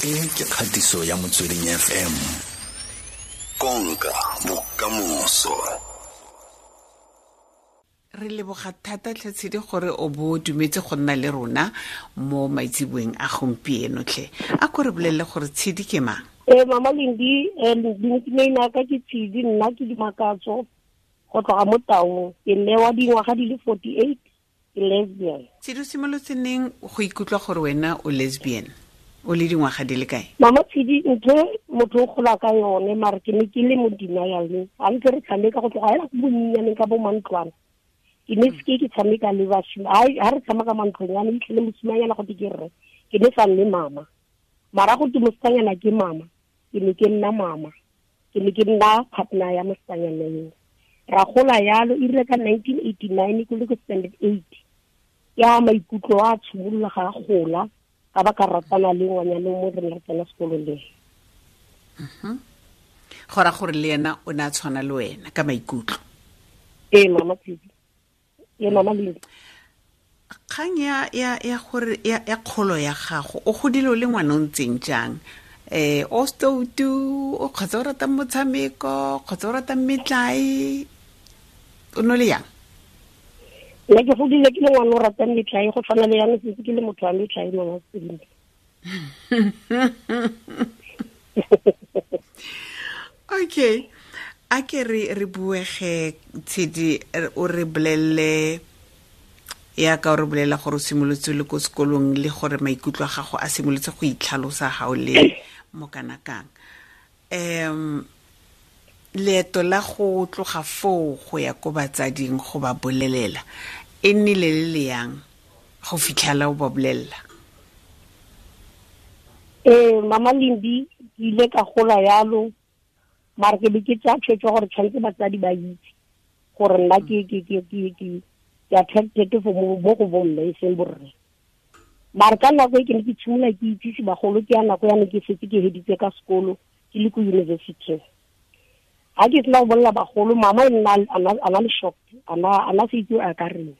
E ke kgatiso ya Motsweding FM. Konka bokamoso. Re leboga thata tlhatshedi gore o bo dumetse go nna le rona mo maitseboeng a gompieno tlhe. A ko re bolelele gore Tshedi ke mang? Mama Lindi, nickname ya ka ke Tshedi, nna ke Dimakatso go tloga mo Taung. Ke mme wa dingwaga di le 48, ke lesbian. Tshedi, o simolotse neng go ikutlwa gore wena o lesbian? O le dingwaga di le kae? Mama Tshedi, ntho motho o gola ka yone, mare ke ne ke le mo denial. Ga ntse re tshameka go tloga hela go bonnyaneng ka bo mantlwana. Ke ne seke ke tshameka le basimane. Ha re tshameka mantlonyane, itlhele mosimanyana go te ke rre. Ke ne sa nne mama. Mara go te mosetsanyana ke mama, ke ne ke nna mama. Ke ne ke nna partner ya mosetsanyana eo. Ra gola yalo, e rile ka 1989 ke le ko standard 8. Ya maikutlo a tshimolola ga a gola, ka ba ka ratana le ngwanyana mo re ne re tsena sekolo le. Go ra gore le ena o ne a tshwana le wena ka maikutlo. Ee, mama Tshedi. Ee, mama Lindi. Kgang ya ya ya gore ya ya kgolo ya gago, o godile o le ngwana o ntseng jang? O stoutu, o kgotsa o ratang motshameko, kgotsa o ratang metlae, o no le yang? Nna ke godile ke le ngwana o ratang metlae, go tshwana le yana setse ke le motho wa metlae, mama Tshedi. Okay, a ke re buege Tshedi, o re bolelele ya ka o re bolela gore o simolotse le ko sekolong le gore maikutlo a gago a simolotse go itlhalosa ga o le mo kana kang. Leeto la go tloga foo go ya ko batsading go ba bolelela e nnile le le yang go fitlhela o ba bolelela? Mama Lindi, ke ile ka gola yalo, mara ke be ke tsaya tshwetso gore tshwanetse batsadi ba itse gore nna ke attracted for mo go bomme e seng borre. Mara ka nako e ke ne ke tshimola ke itsise bagolo, ke ya nako ya ne ke setse ke heditse ka sekolo, ke le ko university. Ha ke sena go bolela bagolo, mama e nna a na le shock, a na se itse a ka reng.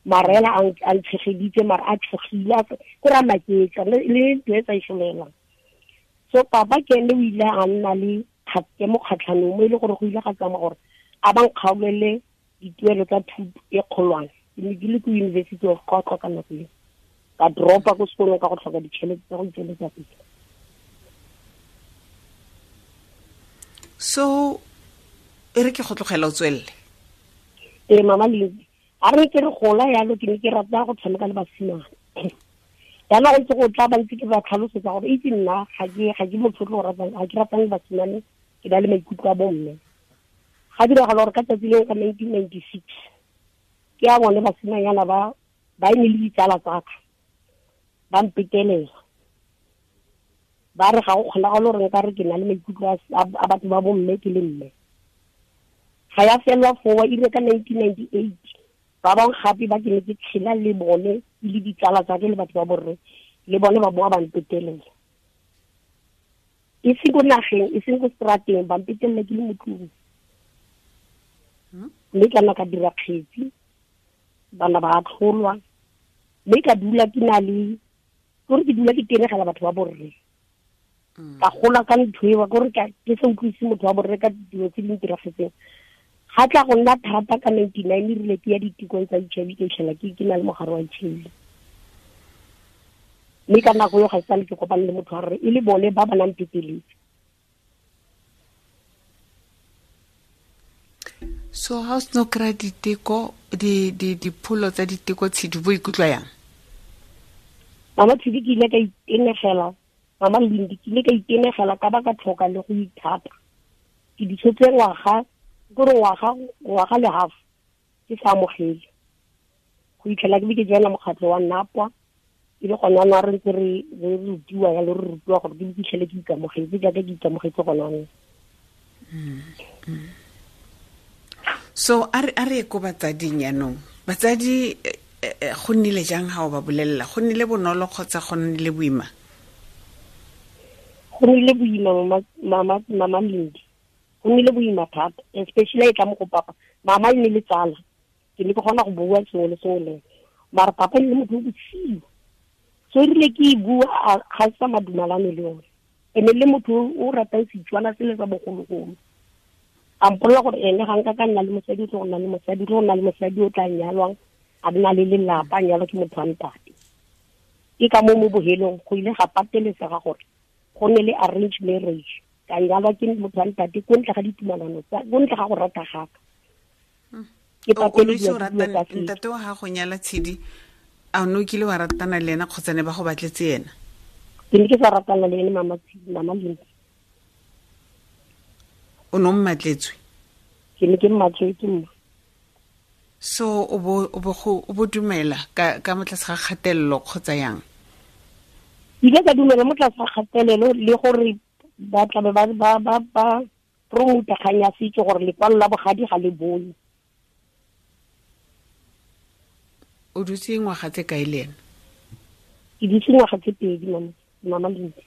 Mara ela a ntshegeditse, mara a tshogile, a ko ra maketsa, le ntho e sa e solelang. So papa ke ene o ile a nna le ke mo kgatlhanong mo e le gore go ile ga tsamaya gore a ba nkgaolele dituelo tsa thuto e kgolwane. Ke ne ke le ko University of Qwaqwa ka nako eo. Ka dropa ko sekolong ka go tlhoka ditšhelete tsa go itsweletsa pele. So e re ke go tlogela o tswelele? Ee, mama Lindi, a re ke re gola yalo, ke ne ke rata go tshameka le basimane. Jaanong go ntse go tla ba ntse ke ba tlhalosetsa gore itse nna ga ke motho o tlo ratang, ga ke ratang basimane, ke na le maikutlo a bomme. Ga diragala gore ka tsatsi leo ka 1996, ke a bone basimanyana ba e ne le ditsala tsa ka, ba mpetelela. Ba re ga go kgonagale gore nka re ke na le maikutlo a batho ba bomme ke le mme. Ga ya fela foo, e rile ka 1998, ba bangwe gape ba ke ne ke tshela le bone, e le ditsala tsa ke le batho ba borre, le bone ba boa ba mpetelela. E seng ko nageng, e seng ko strateng, ba mpetelela ke le mo tlung. Mme ka nna ka dira kgetsi, bana ba atlholwa, mme ka dula ke na le, kore ke dula ke tenegela batho ba borre. Ka gola ka ntho eo, kore ke sa utlwise motho wa borre ka dilo tse di ntiragetseng. Ga tla go nna thata ka 99, e rile ke ya ditekong tsa HIV, ke fitlhela ke na le mogare wa HIV. Mme ka nako eo ga e sale ke kopane le motho wa rre, e le bone ba ba nang peteletse. So ha o seno kry-a diteko, dipholo tsa diteko, Tshedi, bo ikutlwa yang? Mama Tshedi, ke ile ka itenegela, Mama Lindi, ke ile ka itenegela ka ba ka tlhoka le go ithata. Ke di tshotse ngwaga, kore ngwaga le half, ke sa amogele. Go itlhela ke be ke joina mokgatlho wa Napwa, e le gone jaanong re ntse re rutiwa jalo, re rutiwa gore ke fitlhele ke ikamogetse jaaka ke ikamogetse gone jaanong. So a re ko batsading jaanong. Batsadi, go nnile jang ha o ba bolelela? Go nnile bonolo kgotsa go nnile boima? Go nnile boima, mama Lindi. Go nnile boima thata, especially e tla mo go papa. Mama e ne le tsala, ke ne ke kgona go bua sengwe le sengwe le ene. Mara papa e ne le motho o bosigo. So erile ke e bua ga sa madumalane le yone. Ene le motho o ratang Setswana sele sa bogologolo. A mpolelela gore ene ga nka ka nna le mosadi, o tlo go nna le mosadi, o tlo go nna le mosadi o tla nyalwang, a nna le lelapa, a nyalwa ke motho wa ntate. Ke ka mo mo bohelong go ile ga patelesega gore go nne le arranged marriage. Ka nyalwa ke motho wa ntate ko ntle ga ditumalano tsa, ko ntle ga go rata gaka. Ke patelediwa ke dilo tsa setso. Ntate wa gago nyala Tshidi, a o ne o kile wa ratana le ena kgotsa ne ba go batletse ena? Ke ne ke sa ratana le ene, mama Tshidi, mama Lindi. O ne o mmatletswe? Ke ne ke mmatletswe, mma. So o bo dumela ka mo tlase ga kgatelelo kgotsa yang? Ke ile ka dumela mo tlase ga kgatelelo le gore ba tla be ba promota kgang ya setso gore lekwalo la bogadi ga le bone. O dutse ngwaga tse kae le ena? Ke dutse ngwaga tse 2, mama Lindi.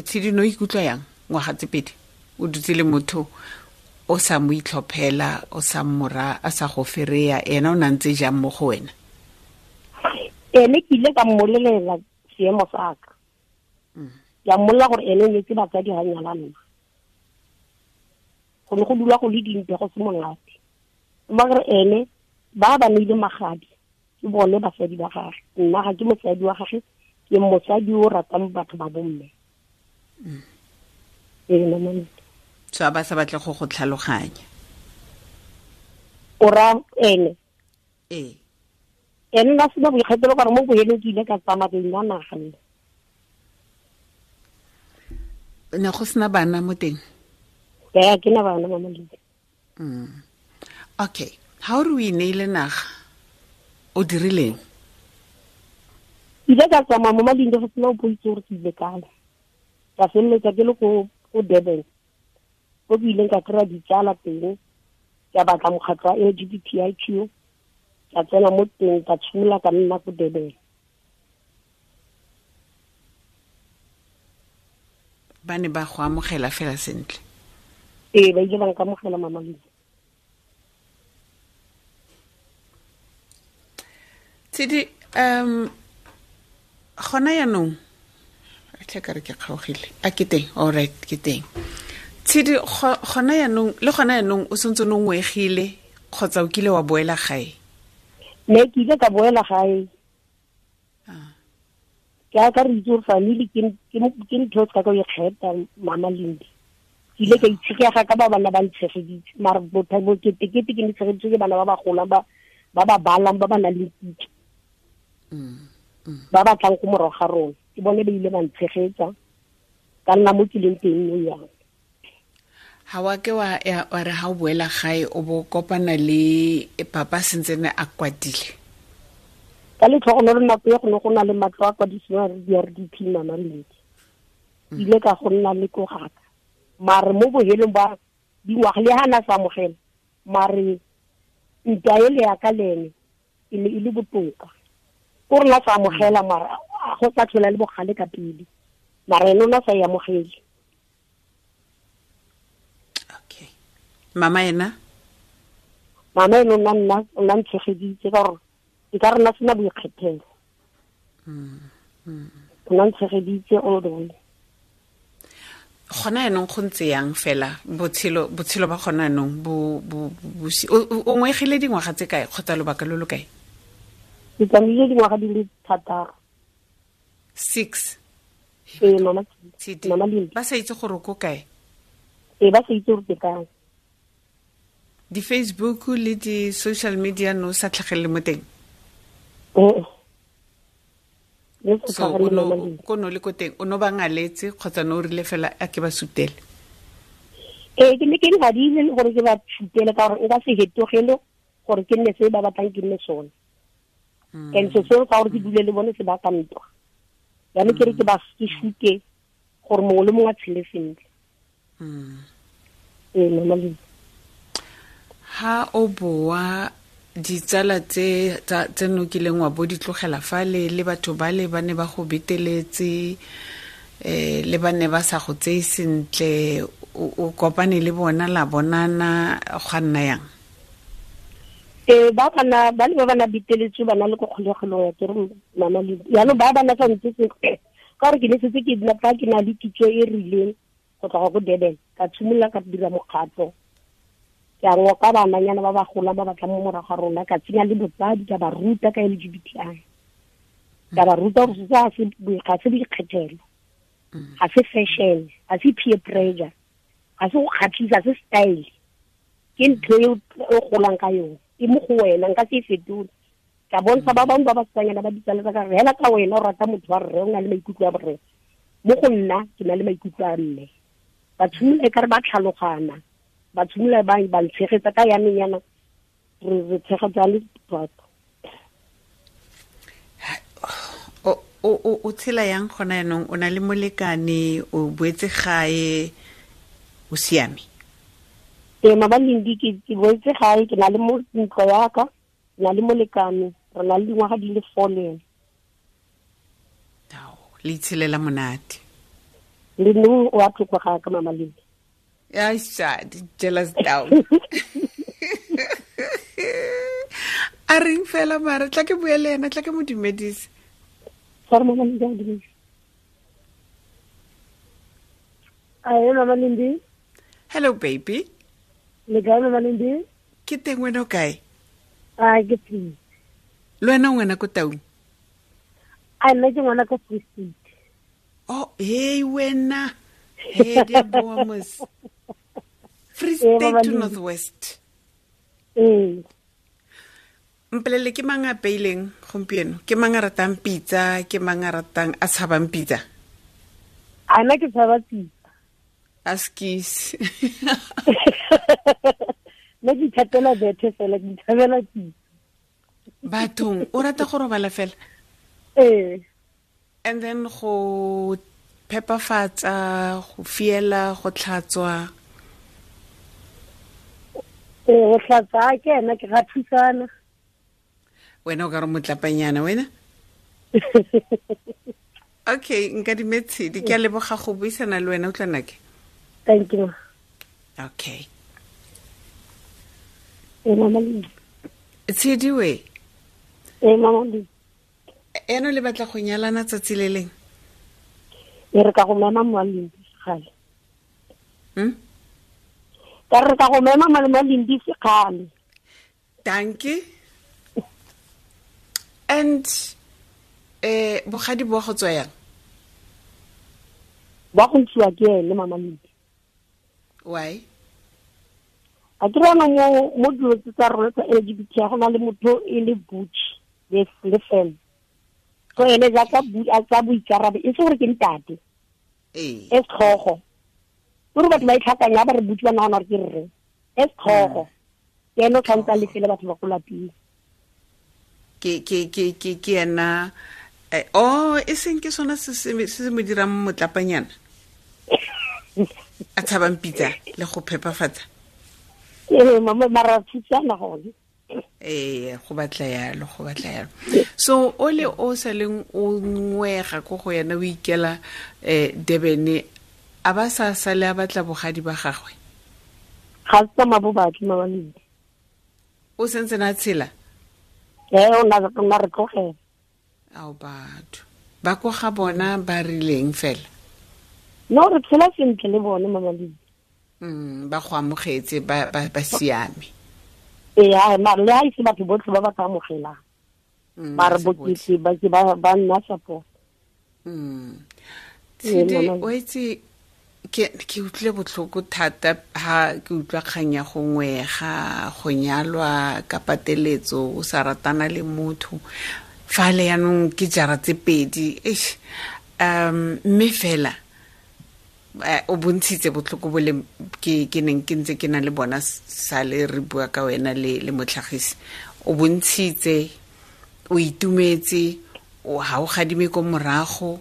Tshidi, no ikutlwa yang ngwaga tse 2? O dutse le motho o sa mo itlhophela, o sa mmora, a sa go fereya, ena o na ntse jang mo go wena? Ene ke ile ka mmolelela seemo sa ka. Ke a mmolelela gore ene o nyetse batsadi ga nyala nna. Go ne go dula go le dintwa go se monate. Mma gore ene ba ba neile magadi ke bone basadi ba gagwe. Nna ga ke mosadi wa gagwe, ke mosadi o ratang batho ba bomme. Ee, mama. So a ba sa batle go go tlhaloganya. O ra ene? Ee. Ene nna sena boikgethelo ka gore mo bohelong ke ile ka tsamaya ke nna naga nna. Ne go sena bana mo teng? Ee, ke na bana, mama Lindi. Okay, ha o re o ineile naga, o dirileng? Ke ile ka tsamaya mo Malindi go sena o itse gore ke ile kae. Ka feleletsa ke le ko Durban, ko ke ileng ka kry-a ditsala teng, ka batla mokgatlho wa LGBTIQ, ka tsena mo teng, ka tshimola ka nna ko Durban. Ba ne ba go amogela fela sentle? Ee, ba ile ba nkamogela, mama Lindi. Tshidi, gona yaanong, tlhe ka re ke kgaogile. A ke teng? All right, ke teng. Tshidi, gona yaanong, le gona yaanong o santse o ngwegile kgotsa o kile wa boela gae? Ne ke ile ka boela gae. Ke a ka re itse gore family ke ntho e ka ka o ikgetha, mama Lindi. Ke ile ka itshegega ka ba bana ba ntshegeditse, mara bokete-kete ke ne tshegeditswe ke bana ba ba golang, ba ba balang, ba ba nang le kitso. Ba ba tlang ko morago ga rona. Ke bone ba ile ba ntshegetsa, ka nna mo ke leng teng nou yana. Ha wa ke wa ya, wa re ha o boela gae o bo kopana le papa sentse ne a kwatile? Ka letlhogonolo nako e go ne go na le matlo a kwadisiwang a re di RDP, mama Lindi. Ile ka go nna le ko gaka. Mare mo bohelong ba dingwaga le ha na sa amogela, mare ntwa ele ya ka le ene e ne e le botoka. Ko re na sa amogela, mara a go sa tlhola le bogale ka pele. Mara ene o na sa e amogele. Okay. Mama ena? Mama ene o nna ntshegeditse ka gore e ka re nna sena boikgethelo. O nna ntshegeditse all the way. Gona yaanong go ntse yang fela botshelo ba gona yaanong o ngwegile dingwaga tse kae kgotsa lobaka lo lo kae? Ke tsamaile dingwaga di le 6. 6? Ee, mama Tshidi. Mama Lindi. Ba sa itse gore o ko kae? Ee, ba sa itse gore ke kae. Di-Facebook le di-social media no sa tlhagelele mo teng? Ee. Le sa So, tlhagelele mo teng. ko no le ko teng, o no ba ngaletse kgotsa no o rile fela a ke ba sutele? Ee, ke ne ke ngadile le gore ke ba sutele ka gore nka se hetogele gore ke nne se ba batlang ke nne sone. And se seo ka gore ke dule le bone se baka ntwa. Jaanong ke re ke ba ke sute gore mongwe le mongwe a tshele sentle. Ee, mama Lindi. Ha o boa ditsala tse no kileng wa bo di tlogela fale le batho ba le ba ne ba go beteletse, le ba ne ba sa go tseye sentle, o kopane le bona la bonana, gwa nna yang? Ba bana ba le ba bana biteletswe bana le ko kgolegelong ya kere mama le jaanong ba bana sa ntse sentle ka gore ke ne setse ke nna fa ke na le kitso e rileng go tloga ko Durban, ka tshimolola ka dira mokgatlho, ke a ngoka bananyana ba ba golang ba batlang mo morago ga rona, ka tsenya le botsadi, ka ba ruta ka LGBTI, ka ba ruta gore se ga se boikgethelo, ga se fashion, ga se peer pressure, ga se go kgatlhisa, ga se style, ke ntho e o golang ka yone, e mo go wena, nka se e fetole. Ka bontsha ba bangwe ba basetsanyana ba ditsala tsa ka re hela ka wena o rata motho wa rre, o na le maikutlo a borre, mo go nna ke na le maikutlo a mme. Ba tshimolola e kare ba tlhalogana, ba tshimolola ba ntshegetsa ka yaneng yana, re tshegetsa le batho. O tshela yang gona yanong, o na le molekane, o boetse gae, o siame? Ee, Mabalindi, ke boetse gae, ke na le ntlo yaka, ke na le molekane, re na le dingwaga di le 4 le ene. Le itshelela monate. Le no o a tlhoka ga ka Mama Lindi. Ya shadi, jealous down. A reng fela mara, tla ke bue le ena, tla ke mo dumedise. Sorry, Mama Lindi, a dumedise. Ae, Mama Lindi. Hello, baby. Le kae, Mama Lindi? Ke teng, wena o kae? A, ke teng. Le wena o ngwana ko Taung? A, nna ke ngwana ko Free State. Oh, hey, wena. Hey, di a boa mos. Free State to North West. Ee. Mpolelele, ke mang a apeileng gompieno? Ke mang a ratang pitsa? Ke mang a ratang a tshabang pitsa? A, nna ke tshaba pitsa. A skis. Nna ke ithatela bethe fela, ke ithabela pitsa. Bathong, o rata go robala fela? Ee. And then go phepafatsa, go fiela, go tlhatswa. Ee, go tlhatswa ke ena, ke ga thusana. Wena o ka re motlapanyana wena? Okay, nka dimetshedi, ke a leboga go buisana le wena, utlwa nake. Thank you. Okay. Ee, Mama Lindi. Tshedi we. Ee, Mama Lindi. Eno le batla go nyalana tsatsi le leng? E re ka go mema Mama Lindi sekgale. Ka re ka go mema Mama Lindi sekgale. Dankie. And bogadi bo go tswa yang? Ba go ntshiwa ke ene, Mama Lindi. Why? A ke rana mo dilo tse tsa rona tsa LGBT, go na le motho e le butch le femme. So ene jaaka a tsa boikarabelo, e se gore ke ntate. Ee. E setlhogo. Gore batho ba itlhakanya ba re butch ba nagana gore ke rre. E setlhogo. Ke ene o tshwanetse a lefele batho ba ko lapeng. Ke ena, oh, e seng ke sona se se mo dirang motlapanyana? A tshabang pitsa le go phepafatsa? Ee, mama, mara thusana gone. Ee, go batla yalo, go batla yalo. So o le o sa leng o ngwega ko go yena, o ikela Durban, a ba sa sale a batla bogadi ba gagwe? Ga se tsamaya bo batle, Mama Lindi. O sentse na tshela? Ee, o na re tlogela. Ao batho. Ba ko ga bona ba rileng fela? No, re tshela sentle le bone, Mama Lindi. Ba go amogetse, ba siame. Ee, mara le ha ise batho botlhe ba ba ka amogelang. Mara bokete ba ke ba nna support. Tshedi, o itse, ke utlwile botlhoko thata ha ke utlwa kgang ya go ngwega, go nyalwa ka pateletso, o sa ratana le motho. Fa le yanong ke jara tse pedi, eish, mme fela, o bontshitse botlhoko bo le ke neng ke ntse ke na le bona sale re bua ka wena le motlhagisi. O bontshitse, o itumetse, ha o gadime ko morago,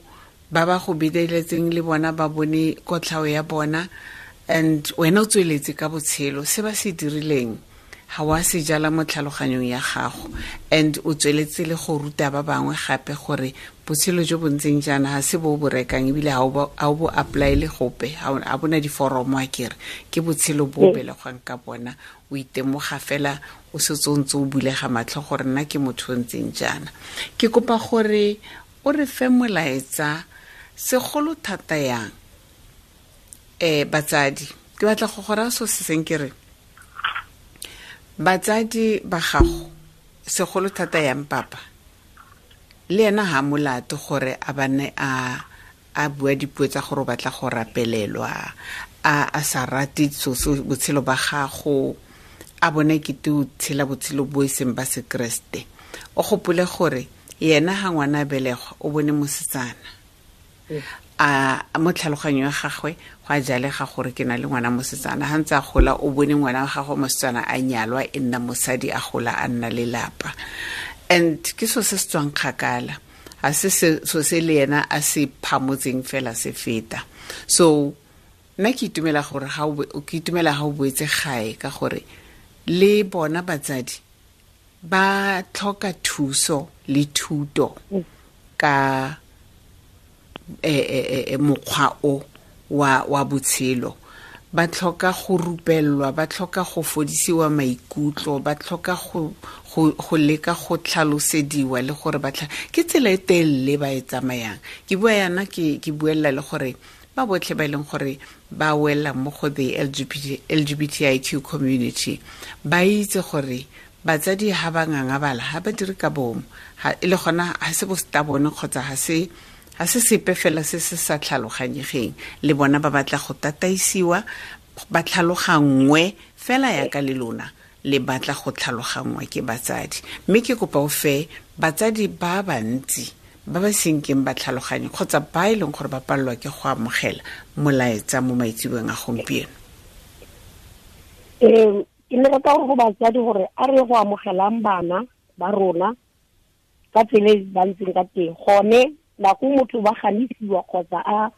ba ba go beteletseng le bona ba bone kotlhao ya bona, and wena o tsweletse ka botshelo. Se ba se dirileng Ga wa se jala mo tlhaloganyong ya gago, and o tsweletse le go ruta ba bangwe gape gore botshelo jo bo ntseng jaana ga se bo bo rekang, ebile ga o bo apply-le gope, ga bona diforomo. A kere ke botshelo bo belegwang ka bona, o itemoga fela o setse o ntse o bulega matlho gore nna ke motho o ntseng jaana. Ke kopa gore o re fe molaetsa segolo thata yang batsadi. Ke batla go go raya so se seng, ke re batsadi ba gago segolo thata yang papa le ena ha molato gore a bane a bua dipuo tsa gore o batla go rapelelwa, a sa rate so botshelo ba gago, a bone kete o tshela botshelo bo e seng ba sekeresete. O gopole gore yena ga ngwana a belegwa o bone mosetsana, a mo tlhaloganyo ya gagwe go a jalega gore ke na le ngwana mosetsana. Ga ntse a gola o bone ngwana wa gagwe mosetsana a nyalwa, e nna mosadi, a gola a nna lelapa. And ke so se se tswang kgakala, ga se so se le yena a se phamotseng fela se feta. So nna ke itumela gore ke itumela ga o boetse gae, ka gore le bona batsadi ba tlhoka thuso le thuto ka mokgwa o wa botshelo. Ba tlhoka go rupellwa, ba tlhoka go fodisiwa maikutlo, ba tlhoka go leka go tlhalosediwa le gore ba ke tsela e telele ba e tsamayang. Ke bua yana ke buella le gore ba botlhe ba e leng gore ba wela mo go the LGBTIQ community ba itse gore batsadi ha ba ngangabala, ha ba dire ka bomo, e le gona ha se bo stubborn kgotsa ha se sepe fela se se sa tlhaloganyegeng. Le bona ba batla go tataisiwa, ba tlhaloganngwe fela yaka le lona le batla go tlhaloganngwa ke batsadi. Mme ke kopa o fe batsadi ba bantsi ba ba senkeng ba tlhaloganye kgotsa ba e leng gore ba palelwa ke go amogela molaetsa mo maitseboeng a gompieno. Ke ne rata gore go batsadi gore a re go amogelang bana ba rona ka tsela e ba ntseng ka teng. Gone nako motho ba ganisiwa kgotsa a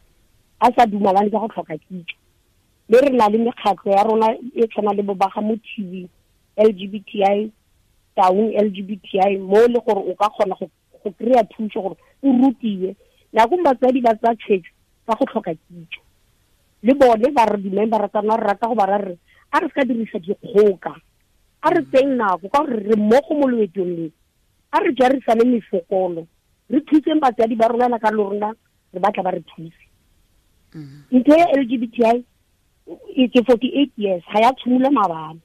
sa dumalane ka go tlhoka kitso. Mme re na le mekgatlho ya rona e tshwana le bo ba ga Mothibi, LGBTI, Taung LGBTI, mo le gore o ka kgona go kry-a thuso gore o rutiwe. Nako batsadi ba tsaya tshwetso ka go tlhoka kitso. Le bone ba re di-member tsa rona re rata go ba ra re a re se ka dirisa dikgoka, a re tseng nako ka gore re mmogo mo loetong le, a re jarisane mefokolo, re thuseng batsadi ba rona ka le rona re batla ba re thuse. Ntho ya LGBTI ke 48 years ga ya tshimolola maabane,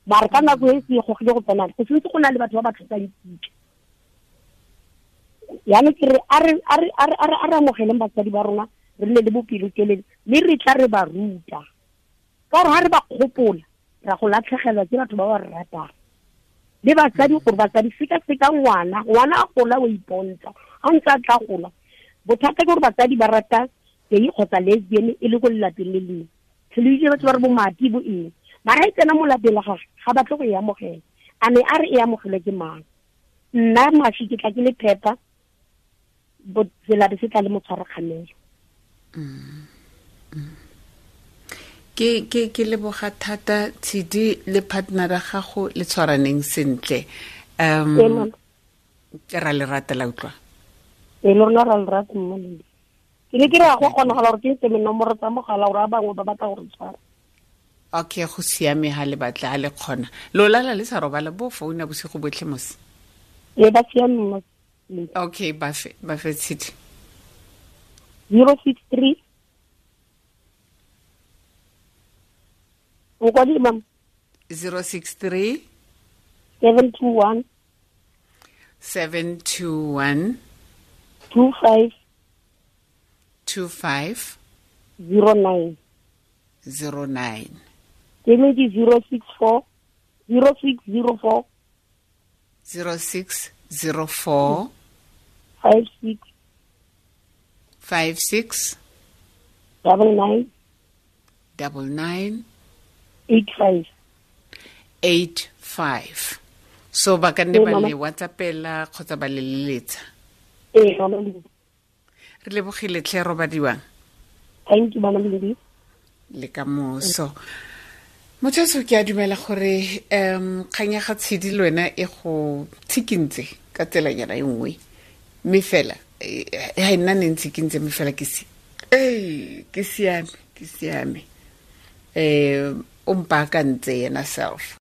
mare ka nako e se gogile go tsena go sentse go na le batho ba ba tlhokang kitso. Yaanong ke re a re amogeleng batsadi ba rona, re nne le bopelotelele mme re tla re ba ruta, ka gore ga re ba kgopola ra go latlhegelwa ke batho ba ba re ratang. Le batsadi gore batsadi seka-seka ngwana, ngwana a gola o ipontsha, ga ntse a tla gola. Bothata ke gore batsadi ba rata gay kgotsa lesbian e le ko lelapeng le lengwe, tlhole batho ba re bo mati bo eng, mara e tsena mo lapeng la gagwe ga batle go e amogela. A ne a re e amogelwe ke mang? Nna mashi ke tla ke le phepa, selabe se tla le motshwarakgamelo. Ke leboga thata Tshidi le partner ya gago le tshwaraneng sentle. Ra le rata la utlwa. E le rona ra le rata mma le. Ke ne ke re go kgonagala gore ke ntse nomoro tsa mogala gore a bangwe ba batla gore tshwara. Okay, go siame ha le batla ha le kgona. Lo lala le sa robala bo founa bosigo botlhe mos. E ba siame mma. Okay, ba fe Tshidi. 063 o kwa di mam 063 721 721 25 25 09 09. Ke ne ke 064 0604 0604 56 56 99 99 85 85. So ba ka nne ba le WhatsAppela kgotsa ba le leletsa. Ee, mama. Re lebogile tlhe robadiwang. Thank you, mama Lindi. Le ka moso. Motho ke a dumela gore kgang ya ga Tshedi le wena e go tshikintse ka tselanyana e nngwe, mme fela ga e nna ne ntshikintse, mme fela ke si ee ke siame, ke siame. O mpaakantse yena self.